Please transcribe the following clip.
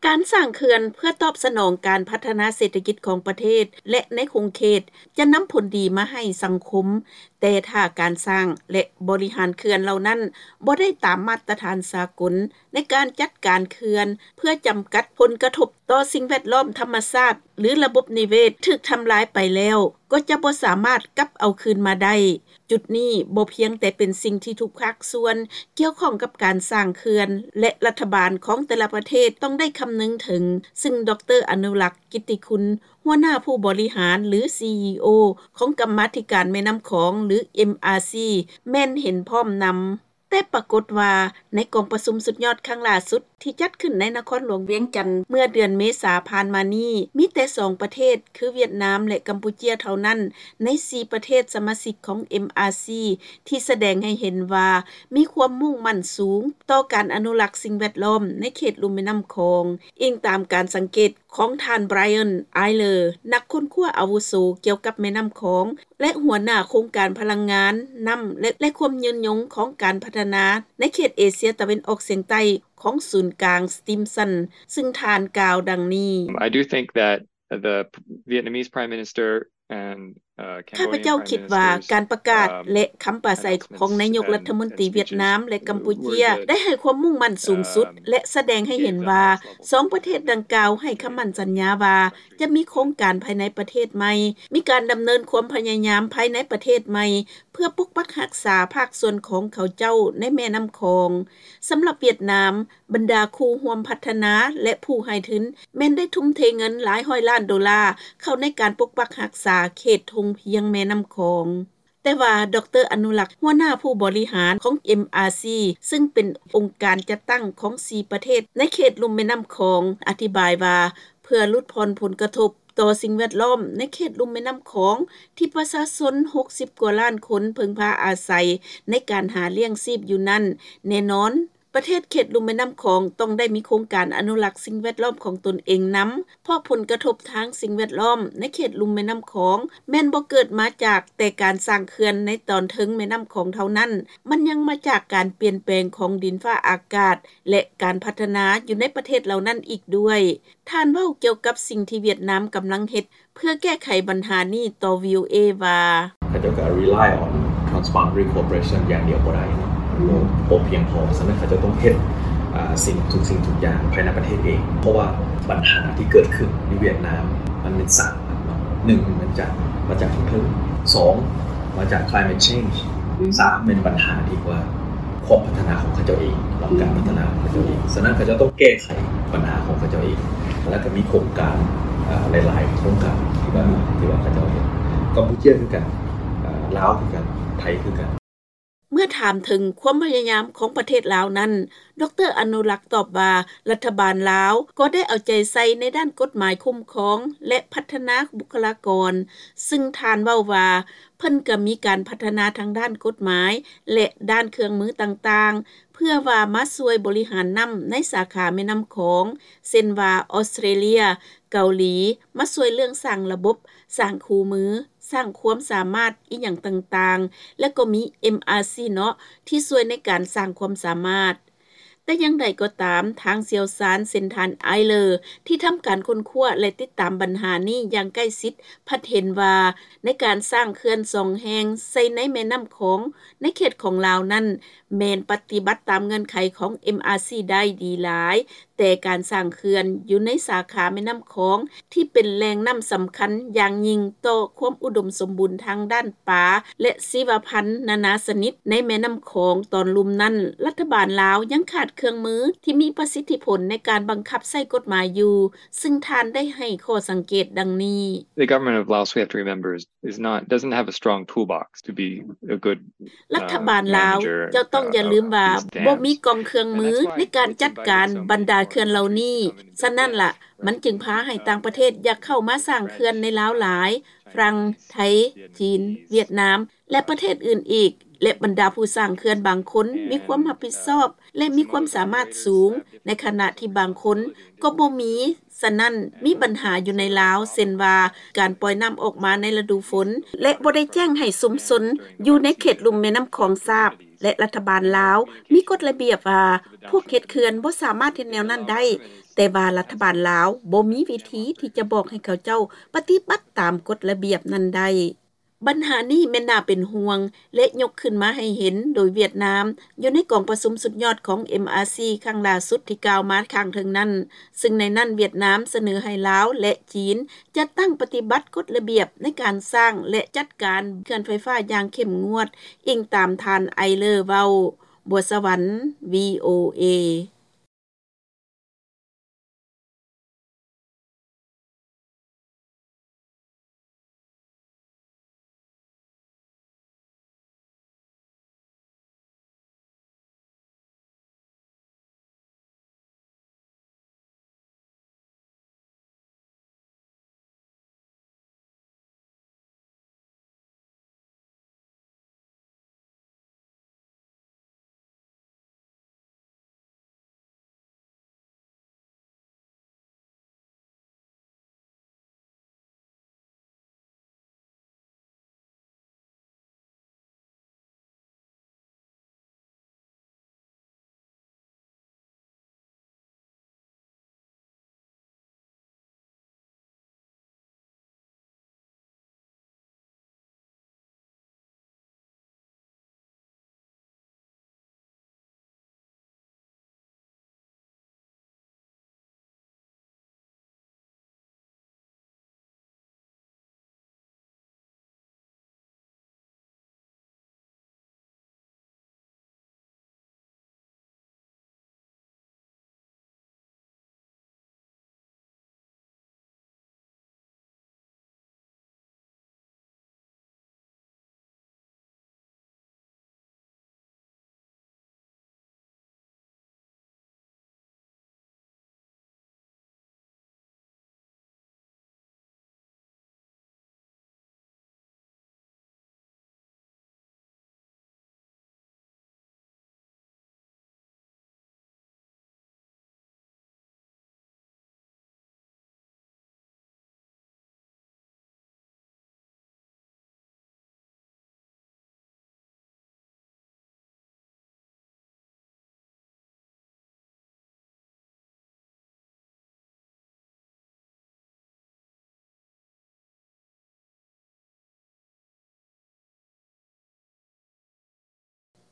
ການສ້າງເຂື່ອນເພື່ອຕອບສະໜອງການພັດທະນາເສດຖະກິດຂອງປະເທດ ແລະ ໃນຂົງເຂດ ຈະນຳຜົນດີມາໃຫ້ສັງຄົມ, ແຕ່ຖ້າການສ້າງ ແລະ ບໍລິຫານເຂື່ອນເຫຼົ່ານັ້ນບໍ່ໄດ້ຕາມມາດຕະຖານສາກົນ ໃນການຈັດການເຂື່ອນເພື່ອຈຳກັດຜົນກະທົບຕໍ່ສິ່ງແວດລ້ອມທຳມະຊາດ ຫຼື ລະບົບນິເວດຖືກທຳລາຍໄປແລ້ວ ກໍຈະບໍ່ສາມາດກັບເອົາຄືນມາໄດ້. ຈຸດນີ້ບໍ່ພຽງແຕ່ເປັນສິ່ງທີ່ທຸກພາກສ່ວນກ່ຽວຂ້ອງກັບການສ້າງເຂື່ອນ ແລະ ລັດຖະບານຂອງແຕ່ລະປະເທດຕ້ອງໄດ້ຄຳນຶງເຖິງ, ຊຶ່ງ ດຣ ອະນຸລັກ ກິດຕິຄຸນ ຫົວໜ້າຜູ້ບໍລິຫານ ຫຼື ຊີອີໂອ ຂອງກຳມາທິການແມ່ນ້ຳຂອງ ຫຼື ເອັມອາຊີ ແມ່ນເຫັນພ້ອມນຳ. ແຕ່ປາກົດວ່າໃນກອງປະຊຸມສຸດຍອດຄັ້ງລ່າສຸດທີ່ຈັດຂຶ້ນໃນນະຄອນຫຼວງວຽງຈັນເມື່ອເດືອນເມສາຜ່ານມານີ້ ມີແຕ່ສອງປະເທດ ຄືຫວຽດນາມ ແລະ ກຳປູເຈຍເທົ່ານັ້ນ ໃນສີ່ປະເທດສະມາຊິກຂອງ ເອັມອາຊີ ທີ່ສະແດງໃຫ້ເຫັນວ່າມີຄວາມມຸ່ງໝັ້ນສູງຕໍ່ການອະນຸລັກສິ່ງແວດລ້ອມໃນເຂດລຸ່ມແມ່ນ້ຳຂອງ, ອີງຕາມການສັງເກດຂອງທ່ານ Brian Eyler ນັກຄົ້ນຄວ້າອາວຸໂສກ່ຽວກັບແມ່ນ້ຳຂອງ ແລະ ຫົວໜ້າໂຄງການພະລັງງານນ້ຳ ແລະ ແລະ ຄວາມຍືນຍົງຂອງການພັດທະນາໃນເຂດເອເຊຍຕາເວັນອອກສຽງໃຕ້ຂອງສູນກາງ Stimson ຊຶ່ງທ່ານກ່າວດັ່ງນີ້. I do think that the Vietnamese Prime Minister ຂ້າພະເຈົ້າຄິດວ່າການປະກາດ ແລະ ຄຳປາໄສຂອງນາຍົກລັດຖະມົນຕີຫວຽດນາມ ແລະ ກຳປູເຈຍ ໄດ້ໃຫ້ຄວາມມຸ່ງໝັ້ນສູງສຸດ ແລະ ສະແດງໃຫ້ເຫັນວ່າສອງປະເທດດັ່ງກ່າວໃຫ້ຄຳໝັ້ນສັນຍາວ່າຈະມີໂຄງການພາຍໃນປະເທດໃໝ່, ມີການດຳເນີນຄວາມພະຍາຍາມພາຍໃນປະເທດໃໝ່ ເພື່ອປົກປັກຮັກສາພາກສ່ວນຂອງເຂົາເຈົ້າໃນແມ່ນ້ຳຂອງ. ສຳລັບຫວຽດນາມ, ບັນດາຄູ່ຮ່ວມພັດທະນາ ແລະ ຜູ້ໃຫ້ທຶນ ແມ່ນໄດ້ທຸ່ມເທເງິນຫຼາຍຮ້ອຍລ້ານໂດລາເຂົ້າໃນການປົກປັກຮັກສາເຂດທົ່ງພຽງແມ່ນ້ຳຂອງ. ແຕ່ວ່າ ດຣ ອະນຸລັກ ຫົວໜ້າຜູ້ບໍລິຫານຂອງ ເອັມອາຊີ ຊຶ່ງເປັນອົງການຈັດຕັ້ງຂອງສີ່ປະເທດໃນເຂດລຸ່ມແມ່ນ້ຳຂອງ ອະທິບາຍວ່າ ເພື່ອຫຼຸດຜ່ອນຜົນກະທົບຕໍ່ສິ່ງແວດລ້ອມໃນເຂດລຸ່ມແມ່ນ້ຳຂອງ ທີ່ປະຊາຊົນຫົກສິບກວ່າລ້ານຄົນເພິ່ງພາອາໄສໃນການຫາລ້ຽງຊີບຢູ່ນັ້ນ, ແນ່ນອນ ປະເທດເຂດລຸ່ມແມ່ນ້ຳຂອງຕ້ອງໄດ້ມີໂຄງການອະນຸລັກສິ່ງແວດລ້ອມຂອງຕົນເອງນຳ, ເພາະຜົນກະທົບທາງສິ່ງແວດລ້ອມໃນເຂດລຸ່ມແມ່ນ້ຳຂອງ ແມ່ນບໍ່ເກີດມາຈາກແຕ່ການສ້າງເຂື່ອນໃນຕອນເທິງແມ່ນ້ຳຂອງເທົ່ານັ້ນ, ມັນຍັງມາຈາກການປ່ຽນແປງຂອງດິນຟ້າອາກາດ ແລະ ການພັດທະນາຢູ່ໃນປະເທດເຫຼົ່ານັ້ນອີກດ້ວຍ. ທ່ານເວົ້າກ່ຽວກັບສິ່ງທີ່ຫວຽດນາມກຳລັງເຮັດ ເພື່ອແກ້ໄຂບັນຫານີ້ຕໍ່ ວີໂອເອ ວ່າ ເຂົາເຈົ້າກໍ rely on transboundary cooperation ຢ່າງດຽວບໍ່ໄດ້ເນາະ ບໍ່ພຽງພໍ. ສະນັ້ນເຂົາເຈົ້າຕ້ອງເຮັດ ອ່າ ສິ່ງ ທຸກສິ່ງທຸກຢ່າງພາຍໃນປະເທດເອງ ເພາະວ່າບັນຫາທີ່ເກີດຂຶ້ນຢູ່ຫວຽດນາມ ມັນເປັນສາມອັນເນາະ. ໜຶ່ງ ມັນຈາກ ມາຈາກທາງເທິງ. ສອງ ມາຈາກ climate change. ສາມ ແມ່ນບັນຫາທີ່ວ່າ ຄວາມພັດທະນາຂອງເຂົາເຈົ້າເອງ ແລະ ການພັດທະນາຂອງເຂົາເຈົ້າເອງ. ສະນັ້ນເຂົາເຈົ້າຕ້ອງແກ້ໄຂບັນຫາຂອງເຂົາເຈົ້າເອງ ແລ້ວກໍມີໂຄງການ ເອີ ຫຼາຍໆໂຄງການທີ່ວ່າ ທີ່ວ່າເຂົາເຈົ້າເຮັດ. ກຳປູເຈຍຄືກັນ, ເອີ ລາວຄືກັນ, ໄທຄືກັນ. ເມື່ອຖາມເຖິງຄວາມພະຍາຍາມຂອງປະເທດລາວນັ້ນ, ດຣ ອະນຸລັກຕອບວ່າ ລັດຖະບານລາວກໍໄດ້ເອົາໃຈໃສ່ໃນດ້ານກົດໝາຍຄຸ້ມຄອງ ແລະ ພັດທະນາບຸກຄະລາກອນ, ຊຶ່ງທ່ານເວົ້າວ່າ ເພິ່ນກໍມີການພັດທະນາທາງດ້ານກົດໝາຍ ແລະ ດ້ານເຄື່ອງມືຕ່າງໆ ເພື່ອວ່າມາຊ່ວຍບໍລິຫານນ້ຳໃນສາຂາແມ່ນ້ຳຂອງ ເຊັ່ນວ່າ ອອສເຕຣເລຍ, ເກົາຫຼີ ມາຊ່ວຍເລື່ອງສ້າງລະບົບ, ສ້າງຄູ່ມື, ສ້າງຄວາມສາມາດອີ່ຫຍັງຕ່າງໆ ແລະ ກໍມີ ເອັມອາຊີ ເນາະ ທີ່ຊ່ວຍໃນການສ້າງຄວາມສາມາດ. ແຕ່ຢ່າງໃດກໍຕາມ, ທາງຊ່ຽວຊານເຊັ່ນທ່ານ ໄອເລີ ທີ່ທຳການຄົ້ນຄວ້າ ແລະ ຕິດຕາມບັນຫານີ້ຢ່າງໃກ້ຊິດ ພັດເຫັນວ່າ ໃນການສ້າງເຂື່ອນສອງແຫ່ງໃສ່ໃນແມ່ນ້ຳຂອງໃນເຂດຂອງລາວນັ້ນ ແມ່ນປະຕິບັດຕາມເງື່ອນໄຂຂອງ ເອັມອາຊີ ໄດ້ດີຫຼາຍ, ແຕ່ການສ້າງເຂື່ອນຢູ່ໃນສາຂາແມ່ນ້ຳຂອງ ທີ່ເປັນແຫຼ່ງນ້ຳສຳຄັນຢ່າງຍິ່ງຕໍ່ຄວາມອຸດົມສົມບູນທາງດ້ານປາ ແລະ ຊີວະພັນນານາຊະນິດໃນແມ່ນ້ຳຂອງຕອນລຸ່ມນັ້ນ, ລັດຖະບານລາວຍັງຂາດເຄື່ອງມືທີ່ມີປະສິດທິຜົນໃນການບັງຄັບໃຊ້ກົດໝາຍຢູ່, ຊຶ່ງທ່ານໄດ້ໃຫ້ຂໍ້ສັງເກດດັ່ງນີ້. The government of Laos, we have to remember, is, is not, doesn't have a strong toolbox to be a good ລັດຖະບານລາວ ເຈົ້າຕ້ອງຢ່າລືມວ່າ ບໍ່ມີກອງເຄື່ອງມືໃນການຈັດການບັນດາເຂື່ອນເຫຼົ່ານີ້. ສະນັ້ນລະ ມັນຈຶ່ງພາໃຫ້ຕ່າງປະເທດຢາກເຂົ້າມາສ້າງເຂື່ອນໃນລາວຫຼາຍ, ຝຣັ່ງ, ໄທ, ຈີນ, ຫວຽດນາມ ແລະ ປະເທດອື່ນອີກ, ແລະ ບັນດາຜູ້ສ້າງເຂື່ອນບາງຄົນມີຄວາມຮັບຜິດຊອບ ແລະ ມີຄວາມສາມາດສູງ, ໃນຂະນະທີ່ບາງຄົນກໍບໍ່ມີ. ສະນັ້ນ, ມີບັນຫາຢູ່ໃນລາວ ເຊັ່ນວ່າ ການປ່ອຍນ້ຳອອກມາໃນລະດູຝົນ ແລະ ບໍ່ໄດ້ແຈ້ງໃຫ້ຊຸມຊົນຢູ່ໃນເຂດລຸ່ມແມ່ນ້ຳຂອງຊາບ. ແລະລັດຖະບານລາວ ມີກົດລະບຽບວ່າ ພວກເຮັດເຂື່ອນບໍ່ສາມາດເຮັດແນວນັ້ນໄດ້ ແຕ່ວ່າລັດຖະບານລາວ ບໍ່ມີວິທີທີ່ຈະບອກໃຫ້ເຂົາເຈົ້າ ປະຕິບັດຕາມກົດລະບຽບນັ້ນໄດ້. ບັນຫານີ້ແມ່ນໜ້າເປັນຫ່ວງ ແລະຍົກຂຶ້ນມາໃຫ້ເຫັນໂດຍຫວຽດນາມ ຢູ່ໃນກອງປະຊຸມສຸດຍອດຂອງ MRC ຄັ້ງຫຼ້າສຸດທີ່ກ່າວມາຂ້າງເທິງນັ້ນ ຊຶ່ງໃນນັ້ນຫວຽດນາມສະເໜີໃຫ້ລາວ ແລະຈີນ ຈັດຕັ້ງປະຕິບັດກົດລະບຽບ ໃນການສ້າງ ແລະຈັດການເຂື່ອນໄຟຟ້າຢ່າງເຂັ້ມງວດ ອີງຕາມທ່ານ Eyler ເວົ້າ. ບົວສະຫວັນ VOA.